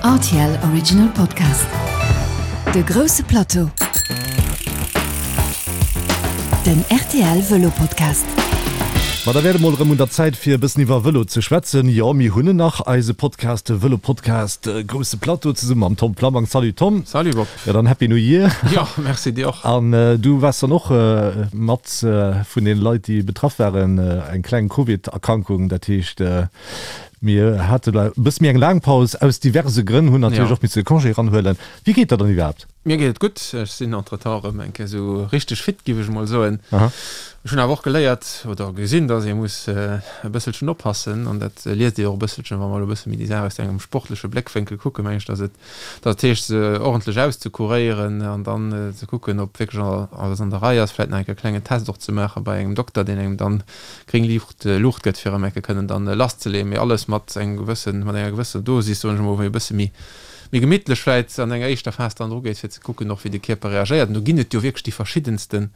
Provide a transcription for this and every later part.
Rtl Original Podcast. De grousse Plateau. Den rtl Vëlo Podcast. Ma da wär et emol erëm un der Zäit fir e bëssen iwwer Vëlo ze schwätzen. Jo, mir hunn en nach, eise Podcast, de Vëlo Podcast Grousse Plateau zesumme mam Tom Flammang. Salut Tom. Salut Bob. Jo, dann Happy New Year. Jo, merci dir och. An du waars dann och mat vun den Leit déi betraff waren, eng kleng Covid-Erkrankung, dat heescht Mir hate e bësse méi eng laang Paus, aus diverse Grënn, hunn natierlech och misse de Congé eranhuelen. Wéi geet der dann iwwerhaapt? Mir geet et gutt. Ech sinn entretemps erëm eng Kéier esou richteg fit, giff ech emol soen. Ech hunn awer och geléiert oder gesinn, dass ee muss e bësselchen oppassen, an dat liest ee och e bësselchen, wa mer elo e bësse méi déi Saach aus engem sportleche Bléckwénkel kucken, meng ech, dass et dat heescht, se ordentlech auszekuréieren an dann ze kucken, ob wierklech alles an der Rei ass, vläit nach eng Kéier e klengen Test och ze maache bei engem Dokter, deen engem dann gréng Liicht Luucht gëtt, fir erëm eng Kéier kënnen dann lasszeleeën, mee alles mat engem gewëssen, mat enger gewësser Dosis, soen ech emol, wou ee e bësse méi, méi gemittlech vläit an enger éischter Phas dann drugeet, fir ze kucken och, wéi de Kierper reagéiert. An do ginn et jo wierklech déi verschiddenste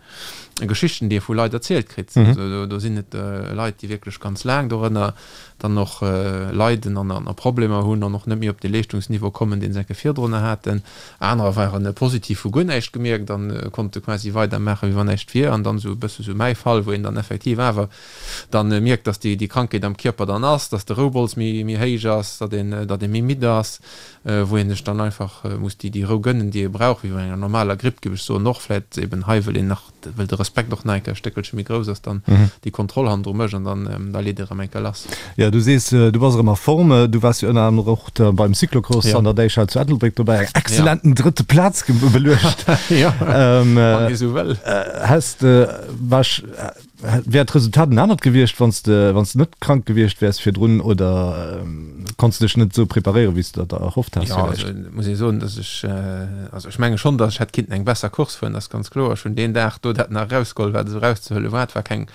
Geschichten, déi ee vu Leit erzielt kritt. Also do sinn et Leit, déi wierklech ganz laang dorënner dann och leiden an a Problemer hunn an och net méi op dee Leeschtungsniveau kommen, deen se eng Kéier virdrunner haten. Anerer waren positiv, hu guer näischt gemierkt an konnte quasi weidermaachen, wéi wann näischt wier. An dann esou e bësse sou mäi Fall, wou een dann effektiv awer dann mierkt, dass déi Krankheet am Kierper dann ass, dass de Roubols méi méi héich ass, datt een datt ee méi midd ass, wou een sech dann einfach muss déi déi Rou gënnen, déi ee brauch, wéi bei enger normaler Gripp, géif ech soen. Och vläit eben hei, wëll een nach well de Respekt och nach eng Kéier e Stéckelche méi grouss ass, dann déi Kontroll hannendru mécht an dann da leet ee erëm eng Kéier lass. Jo, du sees, du bass erëm a Form. Du waars jo ënner anerem och beim Cyclocross an der Däichhal zu Ettelbréck dobäi, eng exzellenten drëtte Plaz beluecht. Jo, wann ee sou wëll. Häss de, wär d'Resultat en anert gewiescht, wann s de, wann s de net krank gewiescht wäers virdrun oder konns de dech net esou preparéieren, wéi s de der dat erhofft has Jo, also villäicht? muss ee soen, dass ech, also ech menge schonn, dass ech hätt kinnten eng besser Course fueren, dat ass ganz kloer. Ech hunn deen Dag do dat nach erausgeholl, wat esou erauszehuele war. Et war keng,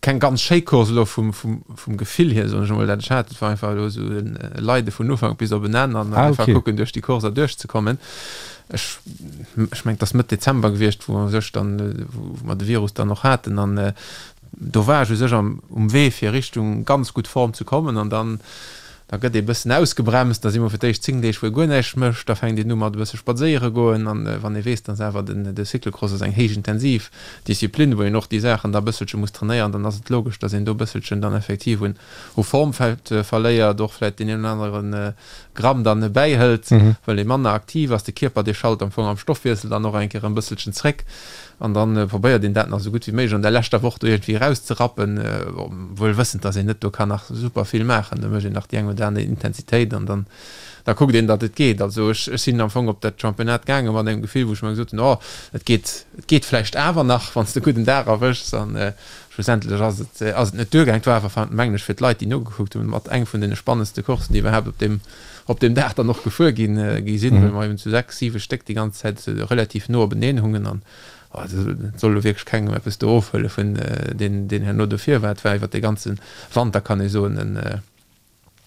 keng ganz schéi Course elo vum, vum, vum Gefill hier, soen ech emol, dat ech hat. Et war einfach elo esou e Leide vun Ufank bis op en Enn an Ah, einfach okay. kucken, duerch déi Course erduerchzekommen. Ech, ech mengen, et ass Mëtt Dezember gewiescht, wou u sech dann, wou mer de Virus dann och haten an do war ech u sech am, um Wee fir Richtung ganz gutt Form ze kommen an dann, da gëtt ee bëssen ausgebremst, da si mer fir d'éischt 10 Deeg wou ee guer näischt mécht, da fänkt een u mat e bësse spadséiere goen an wann ee weess, dass awer den, de Cyclocross ass eng héich intensiv Disziplin, wou een och déi Saachen da e bësselche muss trainéieren, dann ass et logesch, dass een do e bësselchen dann effektiv un, u Form vläicht verléiert, och vläicht deen een oder anere Gramm dann bäihëlt, well ee manner aktiv ass. De Kierper, dee schalt am Fong am Stoffwiessel dann och eng Kéier e bësselchen zréck an dann probéiert een dat nach esou gutt wéi méiglech an der leschter Woch do iergendwéi erauszerappen, wuel wëssend, dass een net do kann nach super vill maachen. Da mécht een nach déi eng oder aner Intensitéit an dann da kuckt een, datt et geet. Also ech ech sinn am Fong op dat Championnat gaange mat engem Gefill, wou ech mer gesot hunn, oh, et geet, et geet vläicht awer nach, wann s de e gudden Dag erwëschs an Schlussendlech ass et ass et net duergaang. Et war awer, mengen ech, fir d'Leit, déi nogekuckt hunn, mat eng vun deene spannendste Courssen, déi iwwerhaapt op deem op deem Dag dann och gefuer ginn gi sinn, well mer eben zu 6, 7 Stéck déi ganz Zäit relativ no openeen hungen an et soll elo wierklech kengem eppes do ofhuele vun deen deen herno dofir war. Et war iwwer de ganze Wanter, kann ee soen, en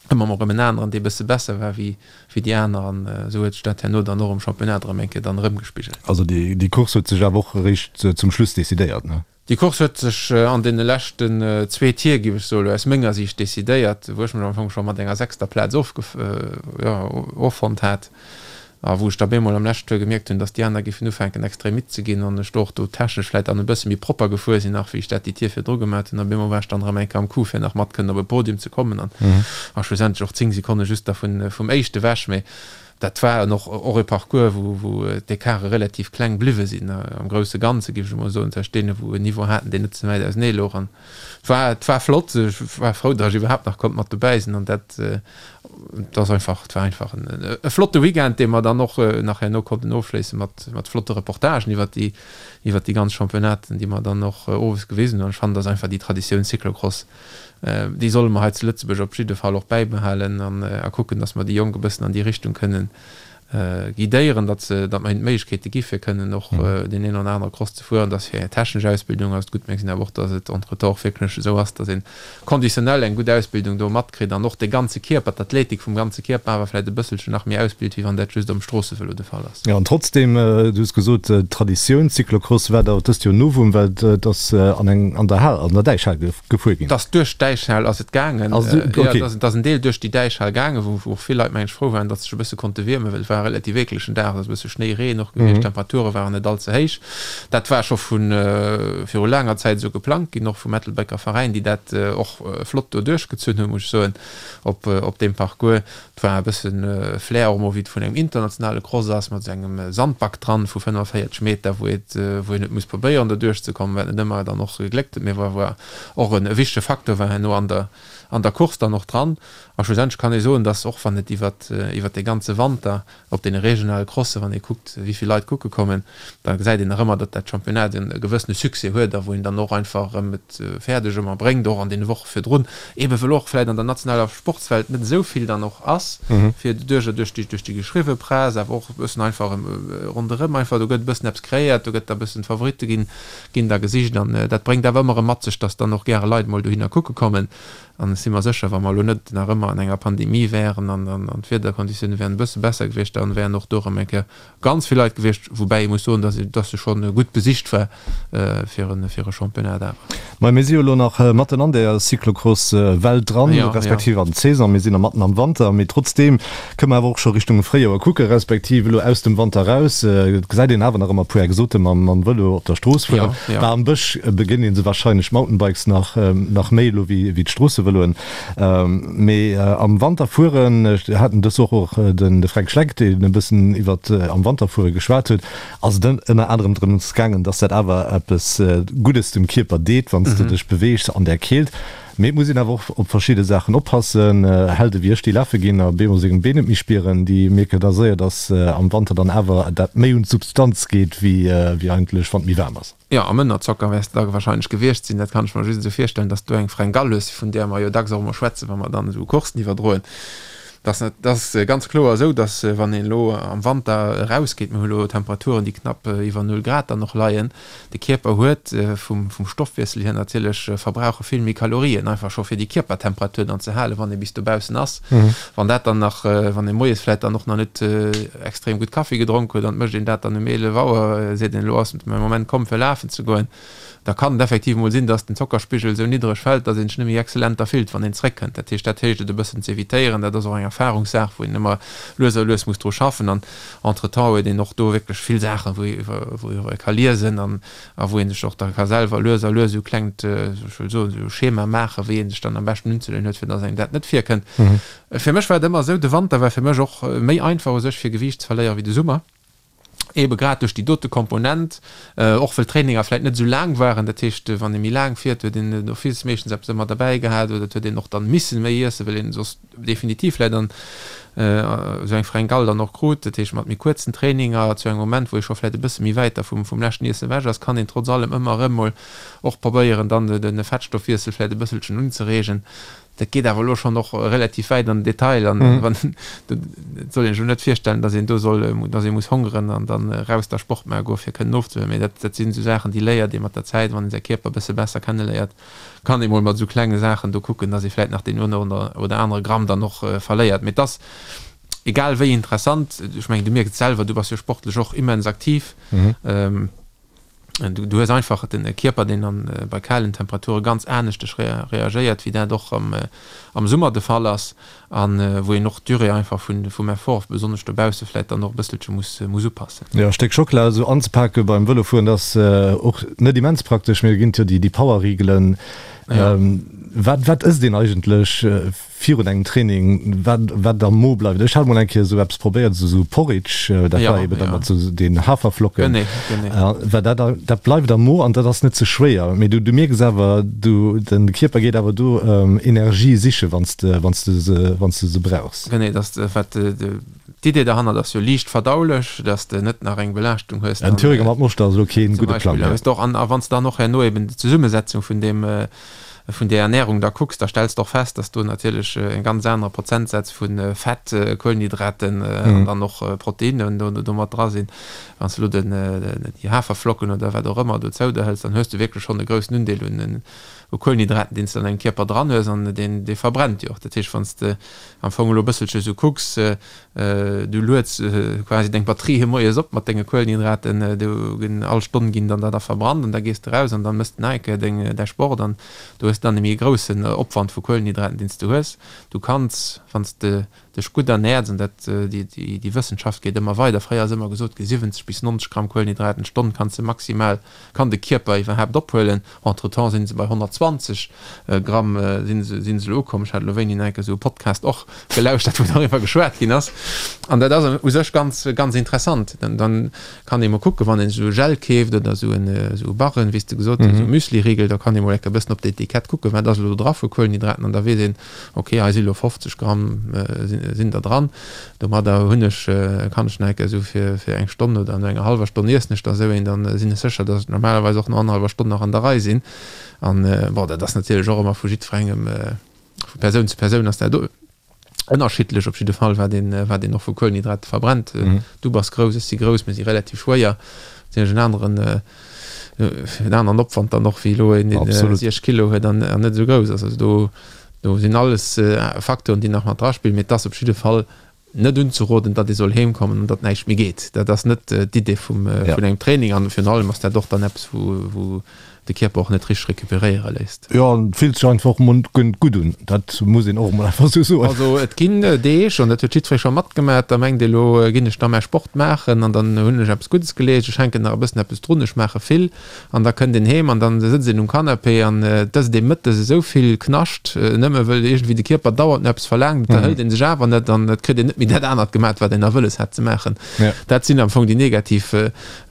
ëmmer mol erëm en aneren, dee bësse besser war wéi wéi déi aner an esou huet sech dat herno dann och am Championnat erëm eng Kéier dann erëmgespigelt. Also déi déi Course huet sech awer och eréischt zum Schluss decidéiert, ne? Déi Course huet sech an deene leschten zwee Tier, géif ech soen, aus menger Siicht decidéiert, wou ech mech am Fong scho mat enger sechster Plaz jo, offonnt hat a wou ech da bemol am leschten Tour gemierkt hunn, dass déi aner géifen ufänken extrem midd ze ginn an ech do och do technesch vläit dann e bësse méi propper gefuer sinn nach, wéi ech dat déi Tier virdru gemat hunn. A bemol war ech dann erëm eng Kéier am Coup, fir nach mat kënnen op e Podium ze kommen an a schlussendlech och 10 Sekonne just da vum éischte ewech. Mee Dat war en och och e Parcours, wou wou d'Ecarte relativ kleng bliwwe sinn am grousse Ganze, géif ech emol soen, tëscht deene wou en Niveau haten, deen net ze wäit ausenee louch. An et war et war flott. Ech war frou, datt ech iwwerhaapt nach konnt mat dobäi sinn an dat et ass einfach et war einfach en e flotte Weekend, dee mer dann och nach herno konnten ofschléisse mat mat flotte Reportagen iwwert déi iwwert déi ganz Championnaten, déi mer dann och owes gewisen hunn. An ech fannen, dat ass einfach déi Traditioun Cyclocross, Déi solle mer hei zu Lëtzebuerg op jidde Fall och bäibehalen an a kucken, datt mer déi Jonk e bëssen an déi Richtung kënnen. Guidéieren, datt se, datt mer hinnen d'Méiglechkeete gi fir kënnen och deen een oder anere Cross ze fueren, datt fir eng technesch Ausbildung ass et gutt, mä gesinn awer och, datt et entretemps och wierklech esou ass, datt een conditionnel eng gutt Ausbildung do matkritt an och de ganze Kierper, d'Athletik vum ganze Kierper awer vläicht e bësselchen nach méi ausbilt, wéi wann dat just um Stroossevëlo de Fall ass. Jo, an trotzdem, du hues gesot, d'Traditioun Cyclocross war der dëst Joer Novum, well et ass an eng, an der Hal, an der Däichhal gefuer ginn. Et ass duerch d'Däichhal ass et gaangen. Also, okay. Jo, et ass en Deel duerch déi Däichhal gaangen, wou och vill Leit, meng ech, frou waren, datt se sech e bësse konnte wiermen, well et war e relativ eeklegen Dag, et ass e bësse Schnéi, Reen och gewiescht, d'Temperature waren net all ze héich. Dat war scho vu viru laanger Zäit esou geplangt ginn, och vum Ettelbrécker Veräin, déi dat och flott do duerchgezunn hunn, muss ech soen, op op deem Parcours. Et war e bësse Flair och emol, wéi et vun engem internationale Cross ass, mat esou engem Sandback dran vu 45 Meter, wou et wou een huet muss probéieren do duerchzekommen, wat net ëmmer dann och gegléckt huet, mee wou awer och e wichtege Facteur war herno an der an der Course dann och dran. A schlussendlech kann ee soen, dass och wann et iwwert iwwert de ganze Wanter Op deene regionale Crossen, wann ee kuckt, wéi vill Leit kucke kommen, da gesäit een nach ëmmer, datt dat Championnat e gewëssene Succès huet a wou een dann och einfach erëm et fäerdeg ëmmer bréngt, och an deene Woche virdrun, eebe wëll och vläicht an der nationaler Sportswelt net esou vill dann och ass, fir duerch duerch déi duerch déi geschriwwe Press, awer och e bëssen einfach ronderëm einfach, do gëtt e bëssen eppes kreéiert, do gëtt da e bëssen d'Favoritte ginn ginn da gesicht an dat bréngt awer ëmmer erëm mat sech, datt dann och gäre Leit mol dohinner kucke kommen. An ech si mer sécher, wa mer elo net nach ëmmer an enger Pandemie wären an d'Wiederkonditioune wären e bësse besser gewiescht, da wären och do erëm eng Kéier ganz vill Leit gewiescht. Woubäi ee muss soen, dass dass se scho gutt besicht war fir e fir e Championnat awer. Mä mir si jo elo nach matten an der Cyclocross-Welt dran, respektiv an d'Saison. Mir sinn nach matten am Wanter, mee trotzdeem kënne mer awer och scho Richtung Fréijoer kucken, respektiv elo aus dem Wanter eraus. Et gesäit een awer nach ëmmer e puer Exote mam Vëlo op der Strooss fueren. Bah, am Bësch begéint ee se warscheinlech Mountainbikes nach, nach méi elo wéi d'Stroossevëloen. Mee am Wanter fueren, ech haten dës Woch och den de Fränk Schleck, deen e bëssen iwwer am Wanter fuere geschwat huet, ass et ënner anerem drëms gaangen, dass dat awer eppes Guddes dem Kierper deet, wann s de dech beweegs an där Keelt. Mee et muss een awer och op verschidde Saachen oppassen. Helde wéi ech, déi lafe ginn a bemol seng Been net méi spieren, déi mierken da séier, dass am Wanter dann awer dat méi un d'Substanz geet, wéi eigentlech wann et méi waarm ass. Jo, am Ënnerzocker wäers de da wahrscheinlech gewiescht sinn. Dat kann ech mer just esou virstellen, dass du eng Fringale hues, vun där mer jo dacks och emol schwätzen, wa mer dann esou Coursen iwwerdroen. Dass et ass ganz kloer esou, dass wann een elo am Wanter erausgeet, mir hu elo Temperaturen, déi knapp iwwer null Grad dann och leien, De Kierper huet vum Stoffwiessel hier natierlech verbrauche vill méi Kalorien, einfach scho fir déi Kierpertemperatur dann ze halen, wann ee bis dobaussen ass. Wann dat dann nach, wann ee moies vläit dann och nach net extrem gutt Kaffi gedronk huet an et mécht een dat dann um 11 Auer, seet een, elo ass mäi Moment komm fir lafen ze goen, da kann et effektiv mol sinn, dass den Zockerspigel esou niddreg fält, dass een sech net méi exzellent da fillt, wann een zréckkënnt. Dat heescht, dat héicht et e bëssen z'evitéieren. Dat ass och eng Erfahrungssaach, wou een ëmmer lues a lues muss dru schaffen an Entretemps huet een och do wierklech vill Saachen, wou wou ee ka liesen an a wou ee sech och da ka selwer lues a lues esou klengt, ech wëll soen, esou Schema maachen, wéi ee sech dann am beschten unzeleeën huet, fir dass engem dat net virkënnt. Fir mech war et ëmmer esou, de Wanter war fir mech och méi einfach u sech fir Gewiicht ze verléieren wéi de Summer, eebe grad duerch déi dote Komponent, och wëll d'Traininger vläicht net esou laang waren. Dat heescht, wann ee méi laang fiert, huet een d'office meeschtens eppes ëmmer derbäi gehat oder et huet een och dann missen méi iessen, well een soss definitiv vläit an esou eng Fringale dann och krut, dat heescht mat méi kuerzen Traininger zu engem Moment, wou ee scho vläit e bësse méi wäit da vum vum leschten Iessen ewech ass, kann een trotz allem ëmmer erëm mol och probéieren dann de Fettstoffwiessel vläit e bësselchen unzereegen. Dat geet awer elo schonn och relativ wäit an den Detail an wann et soll een sech elo net virstellen, datt een do soll, datt ee muss hongeren an dann eraus da Sport maache goe fir kënnen ofzehuelen, mee dat dat sinn esou Saachen, déi léiert ee mat der Zäit, wann ee säi Kierper e bësse besser kenneléiert. Kann ee mol mat esou klenge Saachen do kucken, dass ee vläit nach deen one oder anere Gramm dann och verléiert. Mee et ass egal wéi interessant, ech mengen du mierks et selwer, du bass jo sportlech och immens aktiv, du hues einfach den Kierper deen an bei kalen Temperature ganz aneschteg reagéiert wéi dat och am Summer de Fall ass. An wou een och d'Durée einfach vum Effort, besonnesch dobausse vläit dann och e bësselche muss muss upassen. Jo, e Stéck Schockela esou anzepake beim Vëlofueren, dat ass och net immens praktesch. Mee do ginn et jo déi Power-Rigelen. Wat wat ësst een eigentlech virun engem Training, wat wat am Mo bleift? Ech hat mol eng Kéier esou eppes probéiert, esou Porridge, dat war eben da mat esou den Haferflocken. Genee, genee. Well dat dat bleift am Mo an dat ass net ze schwéier. Mee du du mierks awer, du den Kierper geet awer do Energie siche wann s de wann s de se wann s de se brauchs. Genee, dass de wat d'Idee derhannert ass jo liicht verdaulech, dass de net nach eng Belaaschtung hues. En Thüringer mat Moschter ass elo keen gudde Plang. Zum Beispill, och an a wann s de dann och herno eben d'Zesummesetzung vun deem. vun der Ernährung da kucks, da stells de och fest, dass do natierlech e ganz anere Prozentsaz vu Fett, Kuelenhydraten an dann och Proteinnen do do mat dra sinn. Wann s de elo den déi Haferflocken oder wat och ëmmer dozou der hëls, dann hues de wierklech schonn e groussen Undeel un u Kuelenhydraten, deen s de an dengem Kierper dran hues an deen dee verbrennt jo och. Dat heescht, wann s de am Fong elo e bësselche sou kucks, du lueds quasi deng Batterië moies op mat denge Kuelenhydraten, do ginn all Stonn ginn dann der da verbrannt an da gees de raus an dann mëss de nach eng Kéier deng däi Sport an do hues de dann e méi groussen Opwand vu Kuelenhydraten, deen s de hues. Du kanns, wann s de dech gutt ernäerts, an dat déi déi Wëssenschaft geet ëmmer weider, fréier ass ëmmer gesot gi 70 bis 90 Gramm Kuelenhydraten d'Stonn kanns de maximal, kann de Kierper iwwerhaapt ophuelen. Entretemps sinn se bei 120 Gramm sinn se sinn se elo ukomm. Ech hat elo wéini nach eng Kéier esou e Podcast och gelauschtert, wou doriwwer geschwat ginn ass. An dat ass u sech ganz ganz interessant. Dann dann kann ee mol kucken, wann een esou e Gel keeft oder esou en esou e Barren, wéi s de gesot hues, esou e Müsliriegel, da kann ee mol eng Kéier e bëssen op d'Etikett kucken, wat ass elo do dra vu Kuelenhydraten an da weess een, Ok, hei si lo 50 Gramm sinn der dran. Domadder hunn ech, kann ech nach eng Kéier esou fir fir eng Stonn oder no enger hallwer Stonn iessen ech da esou een, dann sinn ech sécher, datt ech normalerweis och no annerhallwer Stonn nach an der Rei sinn. An bon, dat ass natierlech och ëmmer vu jiddwerengem, vu Persoun zu Persoun ass dat ënnerschiddlech op jidde Fall, wat een, wat een och vu Kuelenhydrate verbrennt. Du bass grouss, ech si grouss, mir si relativ schwéier, natierlech en aneren en aneren Opwand dann och wéi elo een, deen 60 Kilo huet an net esou grouss ass. Also do, do sinn alles Facteuren, déi nach mat draspillen, mee et ass op jidde Fall net unzeroden, datt ee soll heem kommen an datt näischt méi geet. Dat ass net d'Idee vum, vun engem Training an virun allem ass dat och dann eppes, wou, wou de Kierper och net richteg recuperéiere léisst. Jo, an et fillt sech einfach och emol gutt un, dat muss een och emol einfach esou soen. Also et ginn Deeg, an dat huet jiddweree scho matgemaach, da mengt ee elo ginn ech da mäi Sport maachen an dann hunn ech eppes Guddes geleescht, ech hänken nach e bëssen eppes drun, ech maache vill an da kënnt een heem an dann sëtzt een um Canapé an et ësst ee mëttes esou vill Knascht, nëmme wëll iergendwéi de Kierper dauernd no eppes verlaangt, et erhëlt ee sech awer net an et kritt een net méi dat anert gemaach, wat een nach wëlles hat ze maachen. Dat sinn am Fong déi negativ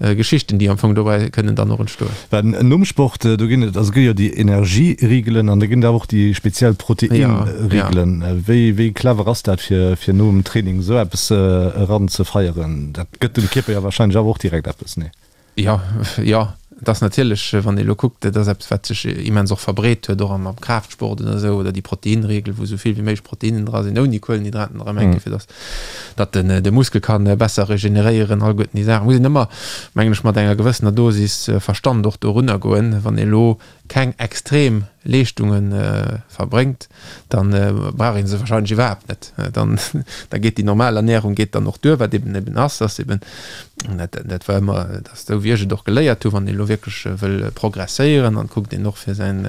Geschichten, déi am Fong dobäi kënnen dann och entstoen. Well nom Sport, do ginn et, also gëtt jo déi Energierigelen an da ginn et awer och déi speziell Proteinrigelen. Wéi, wéi clever ass dat, fir, fir nom Training esou eppes eran ze feieren? Dat gëtt dem Kierper jo wahrscheinlech awer och direkt eppes, nee? Jo, jo, et ass natierlech, wann ee elo kuckt, dat ass eppes, wat sech immens och verbreet huet, och am Kraaftsport oder esou, oder déi Proteinriegel, wou esou vill wéi méiglech Proteinen dra sinn, ouni Kuelenhydraten erëm eng Kéier, fir datt datt den de Muskel kann besser regeneréieren, alleguerten déi Saachen muss een ëmmer, mengen ech, mat enger gewëssener Dosis Verstand och dorunner goen. Wann ee lo keng extrem Leeschtunge verbréngt, dann brauch ee se wahrscheinlech iwwerhaapt net. Dann da geet déi normal Ernährung geet dann och duer, wat eben eben ass, ass eben, dat dat war ëmmer, dat ass esou wéi ech et och geléiert hu, wann ee lo wierklech wëll progresséieren, dann kuckt een och fir säin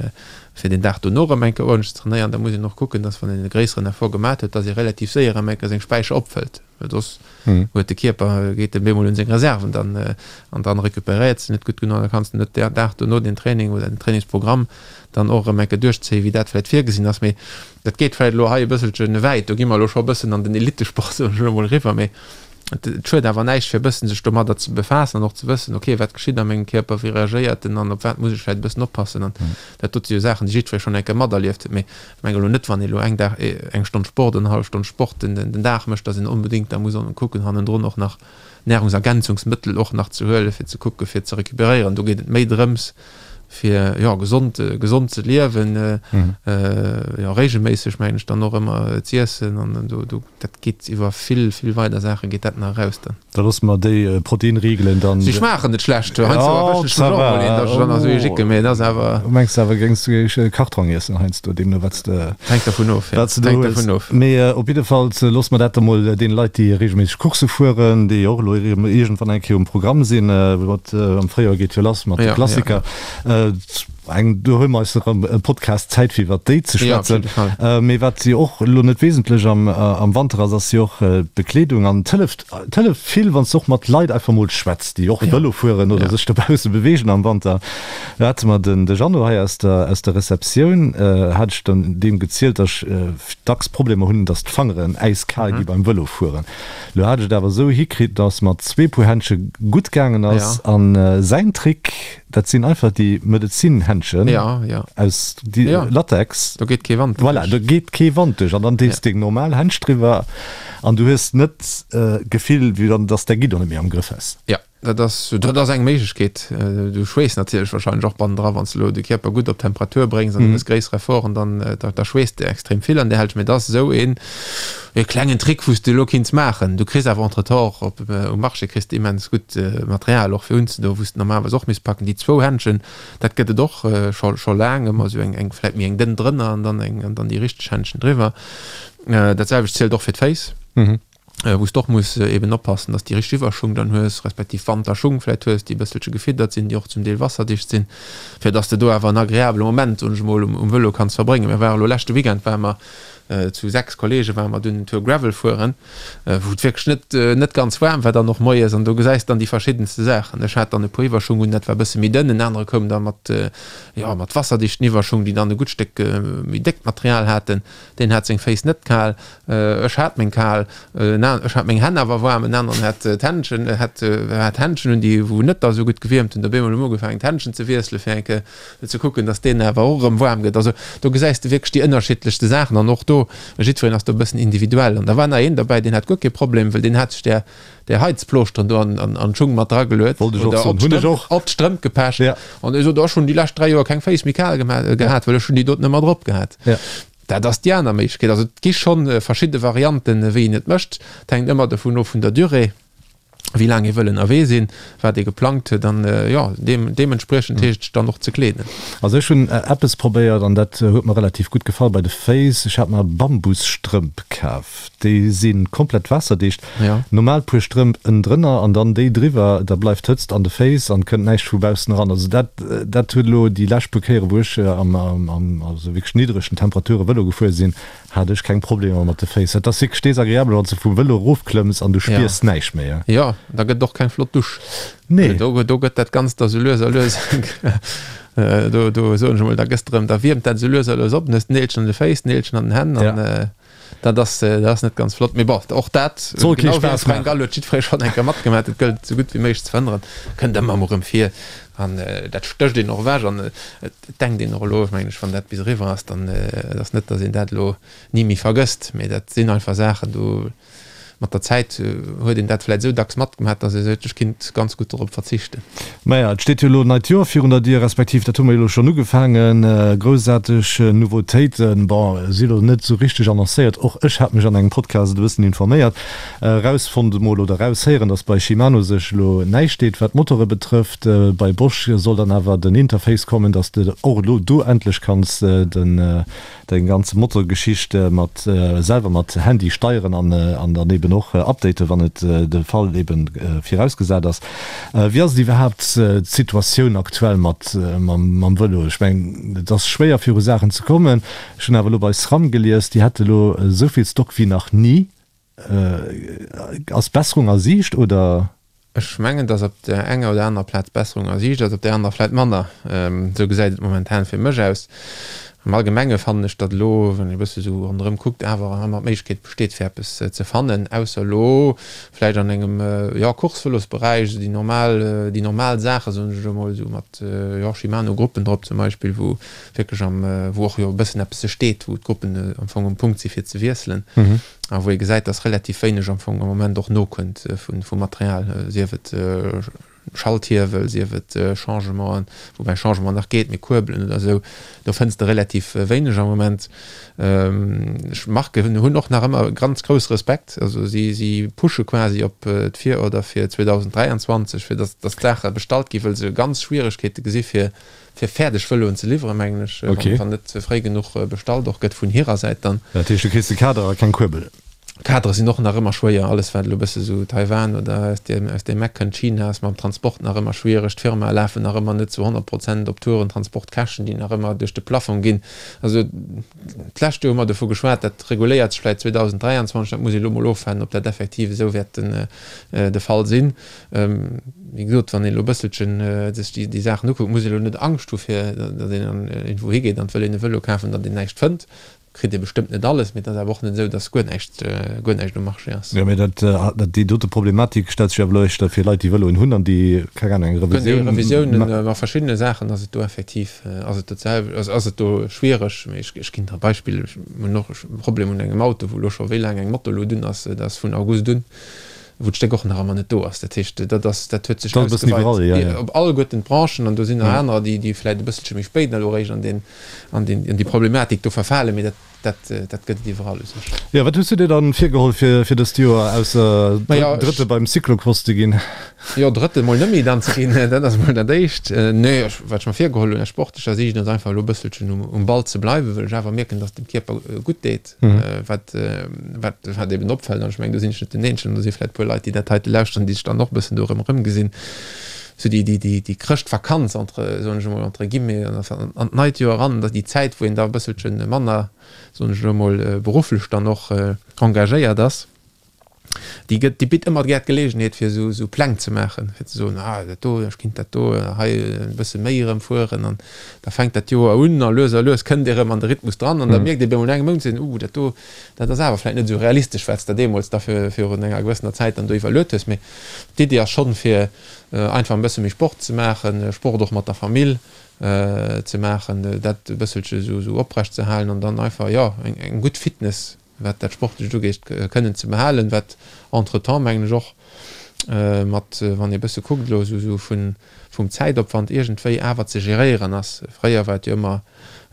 fir den Dag dono erëm eng Kéier uerdentlech ze trainéieren, da muss een och kucken, dass wann een e gréisseren Effort gemat huet, dass ee relativ séier erëm eng Kéier seng Späicher opfëllt, well soss huet de Kierper, geet en bemol un seng Reserven dann an dann recuperéiert se net gutt genuch an da kanns de net den Dag dono den Training oder den Trainingsprogramm dann och erëm eng Kéier duerchzéien, wéi dat vläicht virgesinn ass. Mee dat geet vläicht elo hei e bësselche wäit, do gi mer elo scho e bëssen an den Elitesport, soen ech elo mol, eriwwer, mee Et schued awer näischt, fir e bëssen sech domadder ze befaassen an och ze wëssen, ok, wat geschitt a mengem Kierper, wéi reagéiert en an op wat muss ech vläicht e bëssen oppassen. An dat dote si jo Saachen, déi jiddweree schonn eng Kéier materlieft huet. Mee ech mengen elo net, wann ee elo eng Dag, eng Stonn Sport oder eng hallef Stonn Sport den den Dag mécht, datt een onbedéngt da muss kucken, hannendrun och nach Nahrungsergänzungsmëttel och nach ze huelen, fir ze kucken, fir ze recuperéieren. Do geet et méi drëms, fir jo gesond gesond ze liewen, jo regelméisseg mengen ech dann och ëmmer z'iessen an do do dat geet iwwer vill vill weider Saache geet dat nach eraus dann. Da loosse mer déi Proteinriegelen dann. Si schmaachen net schlecht, heiansdo erwëschen ech mech och emol een, datt ech dann nach esou ee jicken, mee et ass awer. Du mengs awer géings du e Kartrong iessen heiansdo, deemno wat s de. Hänkt dervun of, jo. Wat s de do hues. Hänkt dervun of. Mee op jiddefalls loosse mer dat da mol deene Leit déi regelméisseg Coursse fueren, déi och elo iergendwann eng Kéier um Programm sinn, mat am Fréijoer geet jo lass mat de Klassiker. Eng, do huele mer eis erëm e Podcast Zäit fir iwwert déi ze schwätzen. Mee wat jo och elo net wesentlech am am Wanter ass, ass jo och d'Bekleedung. An et hëlleft, et hëlleft vill, wann s de och mat Leit einfach mol schwätz, déi och Vëlo fueren oder sech dobausse beweegen am Wanter. Do hate mer den de Jeannot hei aus der aus der Receptioun, hat ech dann deem gezielt, datt ech dacks Problemer hunn, datt d'Fangeren äiskal gi beim Vëlofueren. Lo hat ech et awer esou hikritt, dass mat zwee Puer Händsche gutt gaangen ass. Ja. An säin Trick, dat sinn einfach déi Medezinhändschen Ja, ja. aus déi Ja. Latex. Do geet kee Wand Voilà, duerch. do geet kee Wand duerch an dann dees Ja. deng normal Händsch driwwer an du hues net d'Gefill, wéi wann dass däi Guidon net méi am Grëff häss. Ja. dat ass, dat ass eng Méiglechkeet. Du schweess natierlech wahrscheinlech och bannendra, wann s de elo de Kierper gutt op Temperatur bréngs an du méchs gréisser Efforten, dann, da, da schweesst de extrem vill an där Hälscht. Mee et ass esou een, e klengen Trick, wou s de elo kinns maachen. Du kriss awer entretemps och op, um Marché kriss de immens gutt Material och fir unzedoen, wou s de normalerweis och misst packen. Déi zwou Händschen, dat gëtt et och scho, scho laang, ëmmer esou eng, eng vläit méi eng dënn drënner an dann eng, an dann déi richteg Händschen driwwer. Dat selwecht zielt och fir d'Féiss. Wou s de och muss eben oppassen, dass déi richteg Iwwerschung dann hues, respektiv Wanterschung vläit hues, déi e bësselche gefiddert sinn, déi och zum Deel wasserdicht sinn, fir dass de do awer en agreabele Moment, soen ech emol, um Vëlo kanns verbréngen. Mir ware lo leschte Weekend ware mer zu 6 Kollege ware mer dunn en Tour Gravel fueren, wou et wierklech net net ganz waarm war dann och moies an do gesäis dann déi verschiddenste Saachen. Ech hat dann e puer Iwwerschung un, dat war e bësse méi dënn, en anere koum da mat, jo, mat wasserdichten Iwwerschung, déi dann e gutt Stéck méi déckt Material haten. Deen hat seng Féiss net kal, ech hat meng kal, ech hat meng Hänn awer waarm, en aneren hat d'Händschen, hat hat Händschen un, déi wou net da sou gutt gewiermt hunn. Op eemol hu mer ugefaangen d'Händschen ze wiesselen, fir eng Kéier ze kucken, datt deen awer och erëm waarm gëtt. Also do gesäis de wierklech déi ënnerschiddlechste Saachen an och do, jiddwereen ass do e bëssen individuell. An da war nach een derbäi, deen hat guer kee Problem, well deen hat sech där där Heizplooschteren do an an d'Schung mat drageluet Wollt ech och oder soen, op hunn ech d'Strëmp och. op d'Strëmp gepecht Ja. an ech sot, ech hunn déi lescht 3 Joer keng Féiss méi kal gema gehat, well ech hunn déi doten ëmmer drop gehat. Ja. Dat ass déi aner Méiglechkeet. Also et gi schonn verschidde Varianten, wéi een et mécht. Et hänkt ëmmer dovun of vun der Durée, wéi laang ee wëll ënnerwee sinn, wat ee geplangt huet an jo, deem deementspriechend heescht et sech dann och ze kleeden. Also ech hunn eppes probéiert an dat huet mer relativ gutt gefall bei de Féiss. Ech hat mer Bambusstrëmp kaf. Déi si komplett waasserdicht. Normal puer Strëmp ënnendrënner an dann déi driwwer, da bleift d'Hëtzt an de Féiss an kënnt näischt vu baussen eran. Also dat dat huet elo déi lescht puer Kéiere wou ech am am also wierklech niddregen Temperature Vëlo gefuer sinn, hat ech keng Problemer mat de Féiss. Dat ass wierklech desagreabel wann s de vum Vëlo erofklëmms an du spiers näischt méi. Jo, da gëtt et och keng flott Dusch. Nee. Do do gëtt dat Ganzt da sou lues a lues do do soen ech emol, da gëss de erëm, da wiermt dat sou lues a lues op, dann hues de Neelchen an de Féiss, Neelchen an den Hänn an. Dat ass, dat ass net ganz flott. Mee bon, och dat, Soll kee genau wéi Spaass Frank maachen. Gall huet jiddweree schonn eng Kéier matgemaach, et gëllt esou gutt wéi méiglech ze verhënneren, kënnt ëmmer emol erëm vir an dat stécht een och ewech an et denkt een och elo, mengen ech, wann dat bis eriwwer ass, dann et ass net, datt een dat elo ni méi vergësst, mee dat sinn einfach Saachen, do Mat der Zäit huet een dat vläit esou dacks matgemaach, datt ee seet, ech kinnt ganz gutt dorop verzichten. Maja, et steet jo elo en neit Joer virun der Dier, respektiv dat hu mer jo elo schonn ugefaangen. Groussaarteg Nouveautéiten, bon, si elo net esou richteg annoncéiert. Och ech hat mech an engem Podcast e bëssen informéiert, erausfonnt emol oder eraushéieren, datt bei Shimano sech elo näischt deet, wat d'Motore betrëfft. Bei Bosch soll dann awer den Interface kommen, datt s de och elo do endlech kanns den Deng ganz Motorgeschicht mat selwer mat Handy steieren an an dann eben och updaten wann et de Fall eben virausgesat ass. Wéi ass et iwwerhaapt d'Situatioun aktuell mat mam Vëlo? Ech mengen et ass schwéier viru Saachen ze kommen. Ech hunn awer elo bei SRAM gelies, déi hätte elo esou vill Stock wéi nach ni. Ass Besserung a Siicht oder? Ech mengen, datt op där enger oder anerer Plaz Besserung a Siicht ass, op där anerer vläit manner. Esou gesäit et momentan fir mech aus. Am Allgemenge fannen ech, datt elo, wann ee e bësse sou ronderëm kuckt, awer ëmmer d'Méiglechkeet besteet, fir eppes ze fannen, ausser elo vläicht an engem, jo, Course-Vëlosberäich, esou déi normal, déi normal Saachen, soen ech elo mol, esou mat, jo, Shimano-Gruppen drop zum Beispill, wou wierklech am, wou och jo e bëssen eppes steet, wou d'Gruppen am Fong um Punkt si fir ze wiesselen. A wou ee gesäit, dass relativ wéineg am Fong am Moment och nokënnt vu Material, sief et Schalthiewel, sief et Changementen, woubäi Changement nach geet, mee Kuerbelen oder esou, do fënns de relativ wéineg am Moment. Ech Marken hunn och nach ëmmer ganz grouss Respekt, also si si pushe quasi op d'Virorder fir 2023, fir dass dass d'Saache bestallt ginn, wëll se ganz Schwieregkeete gesi fir fir fäerdeg Vëloen ze liwweren, mengen ech, Okay. wann net fréi genuch bestallt och gëtt vun hirer Säit dann. Dat heescht, du kriss de Kader a keng Kuerbel? Kadere sinn och nach ëmmer schwéier, alles wat elo e bësse sou Taiwan oder aus deem, aus deem Eck kënnt, China ass mam Transport nach ëmmer schwiereg, d'Firmae lafen nach ëmmer net zu 100 Prozent op Touren, Transportkäschten, déi nach ëmmer duerch de Plafong ginn. Also d'lescht Joer hu mer dovu geschwat, dat reguléiert sech vläicht 2023, dat muss ee elo mol ofwaarden, ob dat effektiv esou wäert den de Fall sinn. Wéi gesot, wann een elo e bësselchen sech déi, déi Saachen ukuckt, muss een elo net Angscht hu fir, datt een an iergendwou higeet an et wëll een e Vëlo kafen, datt een näischt fënnt. Kritt ee bestëmmt net alles, mee et ass awer och net esou, datt guer näischt, guer näischt um Marché ass. Jo, mee dat, dat, déi dote Problematik stellt sech awer elo éischter fir Leit, déi Vëloen hunn an déi, keng Ahnung, eng Revisioun. Revisiounen, a verschiddene Saachen ass et do effektiv, ass et dat selwecht, ass, ass et do schwiereg. Mee ech, ech ginn der e Beispill, ech hunn och e Problem un engem Auto, wou elo scho wéi laang eng Motorluut un ass, dat ass vun August un. Wou d'Stéck och nach ëmmer net do ass. Dat heescht, dat ass, dat huet sech ausgeweit op alleguerten d'Branchen an do sinn nach anerer, déi, déi vläicht e bësselche méi spéit elo eréischt an deen, an deen, an déi Problematik do verfalen, mee dat, dat, dat gëtt et iwwerall u sech. Jo, wat hues du dir dann virgeholl fir, fir dëst Joer, ausser Drëtte beim Cyclocross ze ginn? Jo, Drëtte mol net méi dann ze ginn, dat ass mol dat Éischt. Nee, ech, wat ech mer virgeholl hunn aus sportlecher Siicht, ass einfach elo e bësselchen um, um Ball ze bleiwen, well ech awer mierken, dass et dem Kierper gutt deet. Wat, wat, wat eben opfält, an ech mengen, do sinn ech net den Eenzegen, do si vläicht e puer Leit, déi dat heite lauschteren, déi sech dann och e bëssen do erëm erëmgesinn, sou déi, déi, déi, déi Chrëschtvakanz entre, soen ech emol, entre guillemets, an, an d'neit Joer eran, da déi Zäit, wou een da e bësselche manner, soen ech elo emol, berufflech dann och engagéiert ass. Déi gëtt, déi bitt ëmmer gär d'Geleegenheet fir esou, esou Pläng ze maachen, fir ze soen, ah dat do, ech kinnt dat do hei e bësse méi erëm fueren an da fänkt dat Joer un a lues a lues kënnt ee erëm an de Rhythmus dran an da mierkt ee bemol no engem Mount, seet een, uh dat do, dat ass awer vläicht net esou realistesch, wat s de deemools da fir virun enger gewëssener Zäit dann do iwwerluet hues. Mee d'Iddi ass schonn, fir einfach e bësse méi Sport ze maachen, Sport och mat der Famill ze maachen, dat e bësselche esou, esou oprecht ze halen an dann einfach, jo, eng, eng gutt Fitness wat dat Sportlecht ugeet, kënnen ze behalen, wat entretemps, mengen ech, och mat, wann ee bësse kuckt elo esou vun, vum Zäitopwand iergendwéi awer ze geréieren ass. Fréier war et jo ëmmer,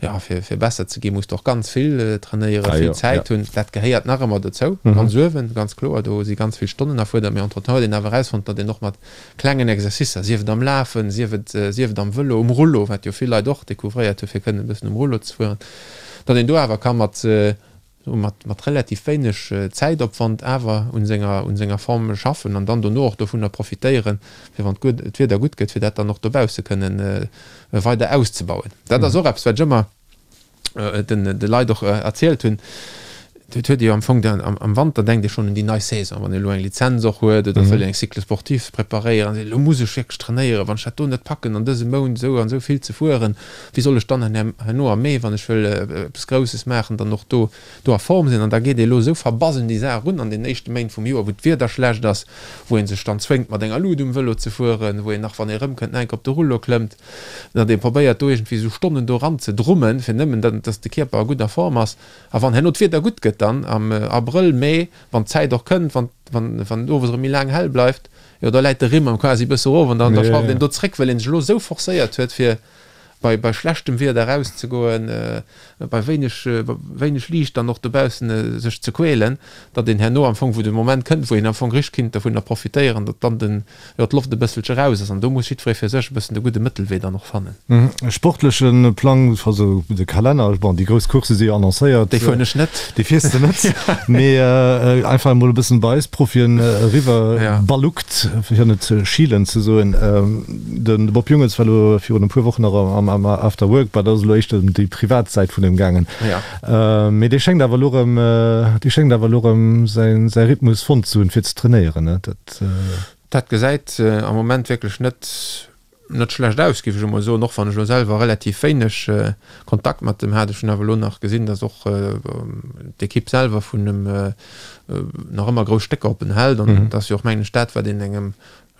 jo, fir, fir besser ze ginn, muss de och ganz vill trainéieren, vill Zäit hunn. Dat gehéiert nach ëmmer dozou, ganz uewen, ganz kloer, do si ganz vill Stonnen erfuerdert, mee entretemps huet een awer erausfonnt, datt een och mat klengen Exercicer, sief et am Lafen, sief et, sief et am Vëlo, um Rullo, wat jo vill Leit och découvréiert hu fir kënnen e bëssen um Rullo ze fueren, datt een do awer ka mat, mat, mat relativ wéineg Zäitopwand awer un senger, un senger Form schaffen an dann dono och dovunner profitéieren, fir wann d'Wieder gutt gëtt, fir dat dann och dobausse kënnen weider auszebauen. Dat ass och eppes, wat ech ëmmer den, de Leit och erzielt hunn. Et huet ee jo am Fong dann am Wanter denkt ee schonn un déi nei Saison, wann ee elo eng Lizenz och huet oder wëll eng Cycle sportif preparéieren, seet ee, elo muss ech wierklech trainéieren, wann ech dat do net packen an dësem Mount esou an esou vill ze fueren, Wéi soll ech dann herno am Mee, wann ech wëll eppes Grousses maachen, dann och do do a Form sinn? An da geet ee elo esou verbass un déi Saach erun an den éischte Méint vum Joer, wou d'Wieder schlecht ass, wou ee sech dann zwéngt, mat enger Lut um Vëlo ze fueren, wou een nach, wann ee erëmkënnt, nach eng Kéier op de Rullo klëmmt, datt ee probéiert, do iergendwéi esou Stonnen do eran ze drummen, fir nëmmen, datt de Kierper a gudder Form ass. A wann herno d'Wieder gutt gëtt dann am Abrëll, Mee, wann d'Zäit och kënnt, wann wann et owes erëm méi laang hell bleift, jo da läit de Rimm am quasi e bësse erof an dann da schrauft een do zréck, well een sech elo esou forcéiert huet, fir bei bei schlechtem Wieder erauszegoen, bei wéineg wéineg Liicht dann och dobaussen sech ze quälen, datt een herno am Fong, wou de Moment kënnt, wou een am Fong richteg kinnt dovunner profitéieren, datt dann den, jo, d'Loft e bësselche raus ass. An do muss jiddweree fir sech e bëssen de gudde Mëttelwee dann och fannen. Sportleche Plang, also de Kalenner, bon, déi grouss Coursse si jo annoncéiert. Déi fueren ech net. Déi fiers de net, mee einfach emol e bëssen bei eis Profien eriwwer balluckt, fir net schielen ze soen. De Bob Jungels war elo virun e puer Wochen nach am After Work, bah, dat ass elo éischter ëm déi privat Säit vun him gaangen. Mee dee schéngt awer elo erëm, dee schéngt awer elo erëm säi säi Rhythmus fonnt ze hunn, fir ze trainéieren, ne? Dat. Dat gesäit am Moment wierklech net, net schlecht aus, géif ech emol soen, och wann ech elo selwer relativ wéineg Kontakt mat em hat. Ech hunn awer elo nach gesinn, datt och d'Ekipp selwer vun em nach ëmmer grouss Stécker op en hält. An dat ass jo och, mengen ech, dat, wat een engem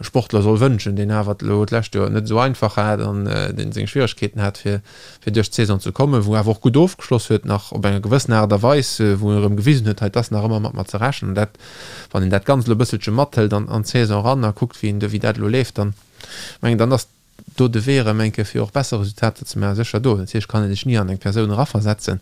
Sportler soll wënschen, deen awer elo d'lescht Joer net esou einfach hat an deen seng Schwieregkeeten hat, fir fir duerch d'Saison ze kommen, wou awer och gutt ofgeschloss huet nach op enger gewëssen Aart a Weis, wou en erëm gewisen huet, hei 't ass nach ëmmer mat mer ze rechnen. An dat, wann een dat Ganzt elo e bësselche mathëlt an an d'Saison eran a kuckt, wéi een wéi dat elo leeft, dann mengen dann ass do de Wee erëm eng Kéier fir och besser Resultater ze maachen sécher do. Natierlech kann ee sech ni an eng Persoun eraversetzen,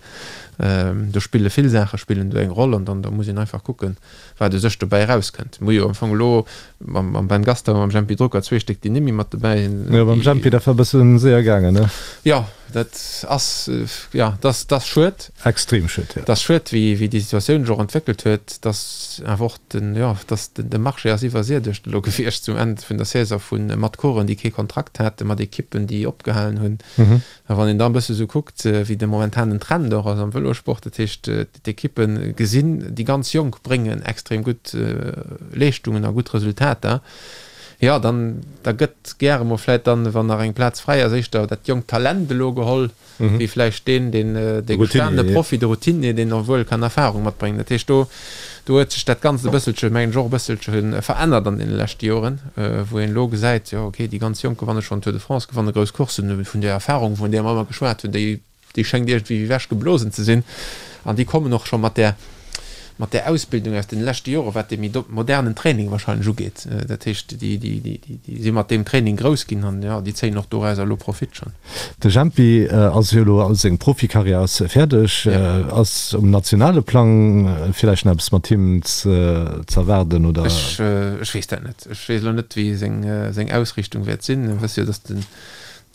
do spille vill Saache spillen do eng Roll an dann da muss een einfach kucken, wat u sech dobäi erauskënnt. Mir hu jo am Fong elo mam Ben Gastauer a mam Jempy Drucker zwee Stéck, déi nimmi mat dobäi sinn. Jo, beim Jempy, dat war e bësse séier gaangen, ne? Jo, dat ass, jo, dat ass schued. Extrem schued, jo. Dat ass schued, wéi déi Situatioun sech och entwéckelt huet, dass awer och den, jo, dass de Marché ass iwwersiedegt elo gewiescht zum Enn vun der Saison vu mat Coureuren, déi kee Kontrakt haten, mat Ekippen, déi opgehalen hunn. A wann een da e bësse sou kuckt, wéi de momentanen Trend och ass am Vëlossport, dat heescht, d'Ekippe gesinn, déi ganz Jonk bréngen extrem gutt Leeschtungen a gutt Resultater, jo, dann da gëtt gäre mol vläicht dann, wann nach eng Plaz fräi ass, éischter dat jonkt Talent elo geholl, wéi vläicht deen, deen dee gestanene Profi, de Routinier, deen och wuel kann Erfahrung matbréngen. Dat heescht, do do huet sech dat Ganzt e bësselche, mengen ech, och e bësselche verännert an deene leschte Joren, wou een elo gesäit, jo okay, déi ganz Jonk gewanne schonn Tour de France, gewanne grouss Courssen, vun där Erfahrung, vun där mer ëmmer geschwat hunn, déi déi schéngt iergendwéi ewechgeblosen ze sinn an déi kommen och scho mat där. mat där Ausbildung aus den leschte Jore wat dee méi modernen Training wahrscheinlech ugeet. Dat heescht, déi, déi, déi, déi si mat deem Training grouss ginn an, jo, déi zéien och dorauser elo Profit schonn. De Jempi ass jo elo, seng Profikarriär ass fäerdeg. Ass um nationale Plang villäicht nach eppes mat him z'erwaarden, oder? Ech, ech weess dat net. Ech weess elo net, wéi seng, seng Ausriichtung wäert sinn. Mir wësse jo, datt den,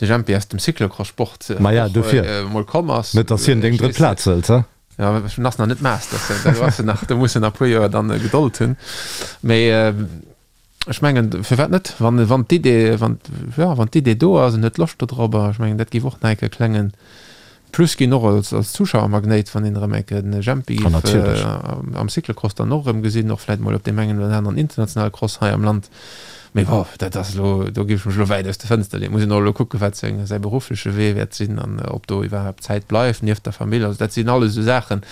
de Jempi aus dem Cyclocross-Sport och emol komm ass. Net, datt hien deng drëtt Plaz hëlt, he? Jo, en ass nach net Master, do ass en nach, do muss en nach e puer Joer dann Gedold hunn. Mee ech mengen, firwat net, wann, wann d'Idee, wann, jo, wann d'Idee do ass, en huet Loscht dodrobber, ech mengen, dat géif och nach eng Kéier e klenge Plus ginn, och als, als Zuschauermagnéit, wann een erëm eng Kéier den Jempi géif am Cyclocross dann och erëm gesinn, och vläicht mol op deem engen oder aneren internationale Cross hei am Land. Mee bon, dat ass elo, do géif ech mech elo wäit aus de Fënster leeën. Muss een och elo kucken, wat seng, säi beruffleche Wee wäert sinn an ob do iwwerhaapt Zäit bleift nieft der Famill. Also dat sinn alles esou Saachen.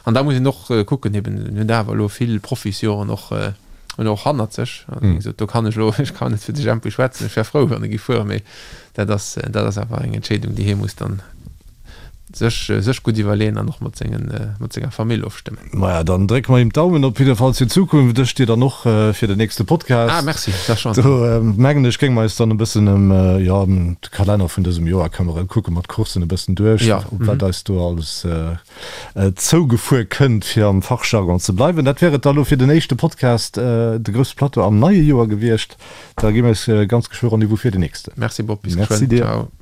An da muss een och kucken, eben, en huet awer elo vill Profisjoren och, huet och hannert sech. Also wéi gesot, do kann ech elo, ech kann net fir de Jempy schwätzen, ech wär frou, wann e géif fueren, mee dat ass, dat ass awer eng Entscheedung, déi hie muss dann sech, sech gutt iwwerleeën an och mat sengen, mat senger Famill ofstëmmen. Maja, dann drécke mer him d'Daumen op jidde Fall fir d'Zukunft. Ech dir dann och fir den nächste Podcast. Ah, merci, da schonn. Do mengen ech, géinge mer eis dann e bëssen ëm, jo, ëm de Kalenner vun dësem Joer këmmeren, kucke mer d'Courssen e bëssen duerch, op wat eis do alles zougefuer kënnt, fir am Fachjargon ze bleiwen. Dat wär et da lo fir den éischte Podcast, de Grousse Plateau am neie Joer gewiescht. Da gi mir eis ganz geschwë Rendez-vous fir den nächsten. Merci Bob, bis geschwënn. Merci dir. Ciao.